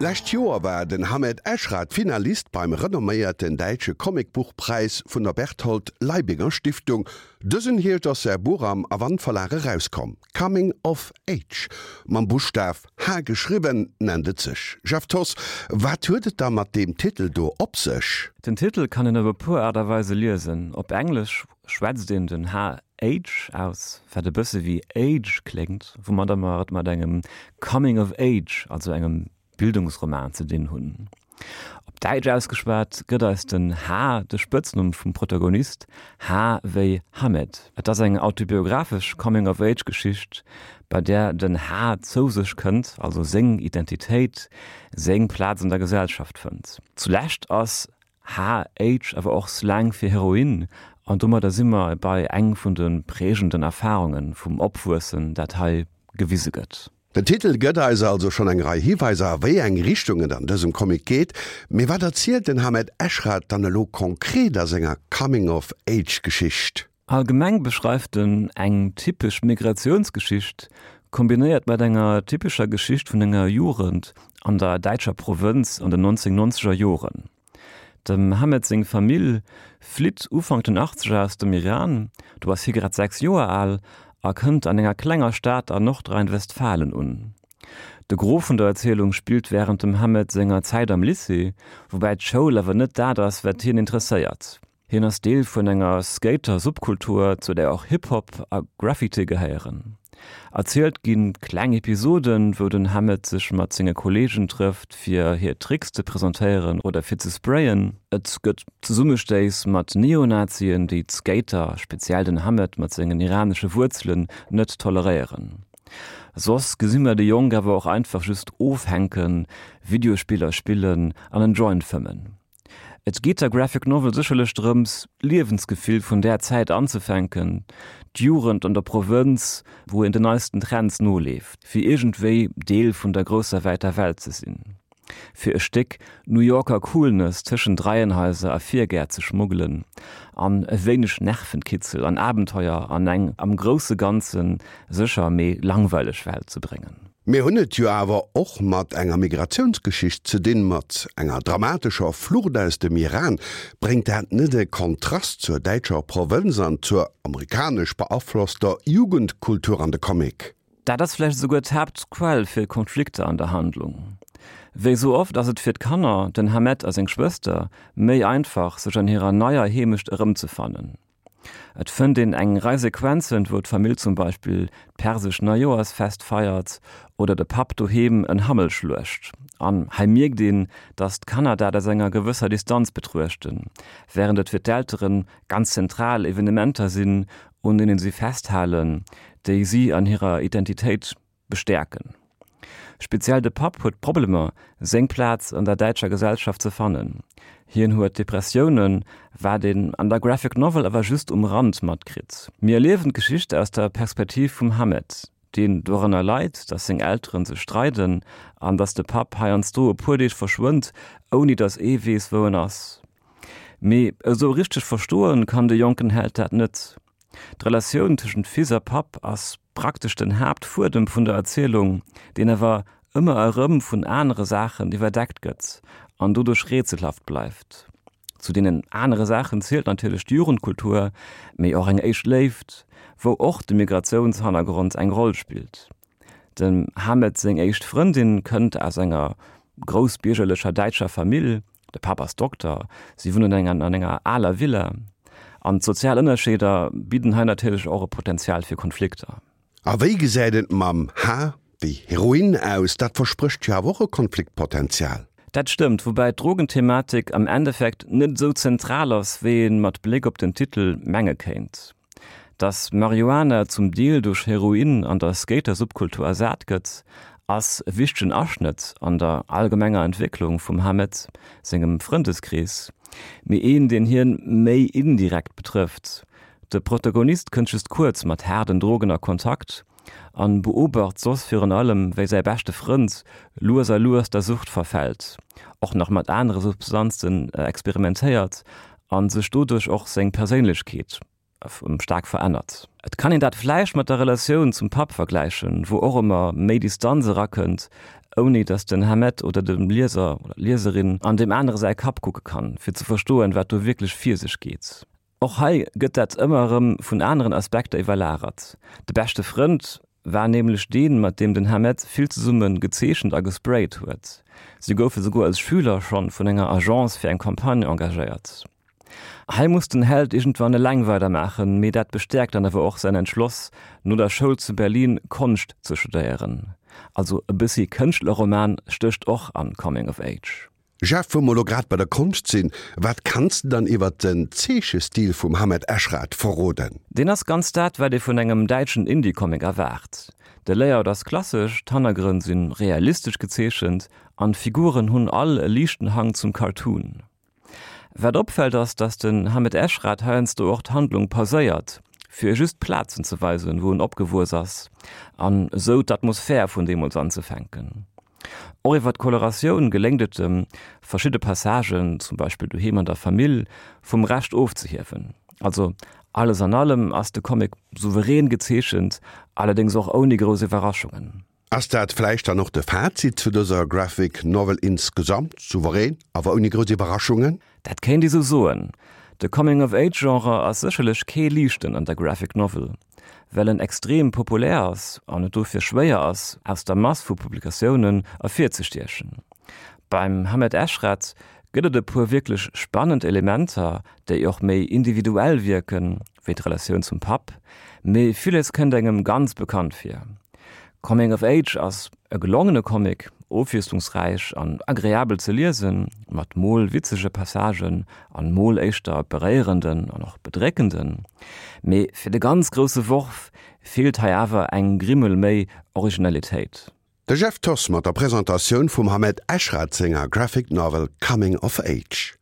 D'lescht Joer war den Hamed Eshrat Finalist beim renomméierten däitsche Comicbuchpräis vun der Berthold Leibinger Stiftung. Dësen Hierscht ass säi Buch am Avant Verlag erauskomm. Coming of Age, mam Buschtaf H geschriwwen, nennt et sech. Jeff Thoss, wat huet et da mat deem Titel do op sech? Den Titel kann een op e puer Aart a Weise liesen. Op Englesch schwätzt een den H Age aus, wat e bësse wéi Age kléngt, woumadder mer et mat engem Coming of Age, also engem Bildungsroman ze dinn hunn. Op Däitsch ausgeschwat gëtt eis den H de Spëtznumm vum Protagonist, H wéi Hamed. Et ass eng autobiographesch Coming of Age Geschicht, bei där den H zou sech kënnt, also seng Identitéit, seng Plaz an der Gesellschaft fënnt. Zulescht ass HH awer och Slang fir Heroin, an domadder si mer bei eng vun de prägenden Erfarunge vum Opwuessen, dat hei gewise gëtt. Den Titel gëtt eis also schonn eng Rei Hiweiser a wéi eng Richtung et an dësem Comic geet. Mee wat erzielt den Hamed Eshrat dann elo konkret a senger Coming-of-Age-Geschicht? Allgemeng beschreift en eng typesch Migratiounsgeschicht, kombinéiert mat enger typescher Geschicht vun enger Jugend an der däitscher Provënz an den 1990er Joren. Dem Hamed seng Famill flitt Ufank den Achtzeger aus dem Iran, do ass hie grad 6 Joer al, a kënnt an enger klenger Stad an Nordrhein-Westfalen un. De Gros vun der Erzielung spillt wärend dem Hamed senger Zäit am Lycée, woubäi d'Schoul awer net dat ass, wat hien interesséiert. Hien ass Deel vun enger Skater-Subkultur, zu där och Hip-Hop a Graffiti gehéieren. Erzielt gi kleng Episoden, wou den Hamed sech mat senge Kolleegen trëfft, fir hir Tricks ze presentéieren oder fir ze sprayen. Et gëtt Zesummestéiss mat Neonazien, déi d'Skater, speziell den Hamed mat sengen iranesche Wuerzelen, net toleréieren. Soss gesi mer de Jong awer och einfach just ofhänken, Videospiller spillen an en Joint fëmmen. Et geet der Graphic Novel sécherlech drëms, d'Liewensgefill vun där Zäit anzefänken, d'Jugend an der Provënz, wou een den neisten Trends noleeft, fir iergendwéi Deel vun der grousser wäiter Welt ze sinn, fir e Stéck New Yorker Coolness tëschent Reihenhaiser a Virgäert ze schmuggelen an e wéineg Nervenkitzel an Abenteuer an eng am grousse Ganze sécher mee langweileg Welt ze bréngen. Mir hunn et jo awer och mat enger Migratiounsgeschicht ze dinn, mat enger dramatescher Flucht aus dem Iran. Bréngt dat net e Kontrast zur däitscher Provënz an zur amerikanesch beaflosster Jugendkultur an de Comic? Dat ass vläicht esouguer d'Haaptquell fir Konflikter an der Handlung. Wéi esou oft ass et fir d'Kanner, den Hamed a seng Schwëster, méi einfach, sech an hirer neier Heemecht erëmzefannen. Et fënnt een eng Rei Sequenzen, wou d'Famill zum Beispill d'persesch Neijoersfest feiert oder de Papp doheem en Hammel schluecht. An hei mierkt een, datt d'Kanner dat aus enger gewësser Distanz betruechten, wärend et fir d'Eltere ganz zentral Evenementer sinn, un deenen si festhalen, déi si an hirer Identitéit bestäerken. Speziell de Papp huet Problemer, seng Plaz an der däitscher Gesellschaft ze fannen. Hien huet Depressiounen, wat een an der Graphic Novel awer just um Rand matkritt. Mir erliewen d'Geschicht aus der Perspektiv vum Hamed, deen doranner leit, datt seng Elteren sech streiden an datt de Papp heiansdo e puer Deeg verschwënnt, ouni datt ee weess, wou en ass. Mee esou richteg verstoen kann de jonken Held dat net. D'Relatioun tëschent Fils a Papp ass praktesch den Haaptfuedem vun der Erzielung, deen awer ëmmer erëm vun anere Saachen iwwerdeckt gëtt an doduerch rätselhaft bleift. Zu deenen anere Saachen zielt natierlech d'Jugendkultur, mee och eng éischt Léift, wou och de Migratiounshannergrond eng Roll spillt. Dem Hamed seng éischt Frëndin kënnt aus enger groussbiergerlecher däitscher Famill, de Papp ass Dokter, si wunnen an enger aler Villa. An d'sozial Ënnerscheeder bidden hei natierlech och e Potenzial fir Konflikter. A wéi gesäit et mam H wéi Heroin aus? Dat versprécht jo awer och e Konfliktpotenzial. Dat stëmmt, woubäi d'Drogenthematik am Endeffekt net esou zentral ass, wéi ee mat Bléck op den Titel menge kéint. Dass Marihuana zum Deel duerch Heroin an der Skater-Subkultur ersat gëtt, ass e wichtegen Aschnëtt an der allgemenger Entwécklung vum Hamed sengem Frëndeskrees, mee een, deen hien méi indirekt betrëfft. De Protagonist kënnt just kuerz mat haarden Drogen a Kontakt an beobacht soss virun allem, wéi säi beschte Frënd lues a lues der Sucht verfält, och nach mat anere Substanzen experimentéiert a sech doduerch och seng Perséinlechkeet staark verännert. Et kann een dat vläicht mat der Relatioun zum Papp vergläichen, wou och ëmmer méi Distanz erakënnt. ouni datt den Hamed oder de Lieser oder d'Lieserin an deem anere säi Kapp kucke kann, fir ze verstoen, wat do wierklech vir sech geet. Och hei gëtt dat ëmmer erëm vun aneren Aspekter iwwerlagert. De beschte Frënd war nämlech deen, mat deem den Hamed vill zesumme gezeechent a gesprayt huet. Si goufe souguer als Schüler schonn vun enger Agence fir eng Campagne engagéiert. Hei muss den Held iergendwann eleng weidermaachen, mee dat bestäerkt dann awer och säin Entschloss, no der Schoul zu Berlin Konscht ze studéieren. Also e bëssi Kënschtlerroman stécht och an Coming of Age. Jeff, wou mer lo grad bei der Konscht sinn, wat kanns de dann iwwert den Zeechestil vum Hamed Eshrat verroden? Deen ass ganz dat, wat ee vun engem däitschen Indie-Comic erwaart. De Layout ass klassesch, d'Hannergrënn si realistesch gezeechent an d'Figuren hunn all e liichten Hang zum Cartoon. Wat opfält ass, dass den Hamed Eshrat heiansdo och d'Handlung pauséiert, fir just Plazen ze weisen, wou en opgewuess ass an esou d'Atmosphär vun deemools anzefänken. Och iwwer d'Coloratioun geléngt et em, verschidde Passagen, zum Beispill doheem an der Famill, vum Rescht ofzehiewen. Also alles an allem ass de Comic souverän gezeechent, allerdéngs och ouni grouss Iwwerraschungen. Ass dat vläicht dann och de Fazit zu dëser Graphic Novel insgesamt? Souverän, awer ouni grouss Iwwerraschungen? Dat kéint ee sou soen. De Coming-of-Age-Genre ass sécherlech kee liichten an der Graphic Novel, well en extrem populär ass an et dofir schwéier ass, aus der Mass vu Publikatiounen ervirzestiechen. Beim Hamed Eshrat gëtt et e puer wierklech spannend Elementer, déi och méi individuell wierken, wéi d'Relatioun zum Papp, mee villes kënnt engem ganz bekannt vir. Coming of Age ass e gelongene Comic, ofwiesslungsräich an agreabel ze liesen, mat mol witzege Passagen an mol éischter beréierenden an och bedréckenden. Mee fir de ganz grousse Worf feelt hei awer eng Grimmel méi Originalitéit. De Jeff Thoss mat der Presentatioun vum Hamed Eshrat senger Graphic Novel Coming of Age.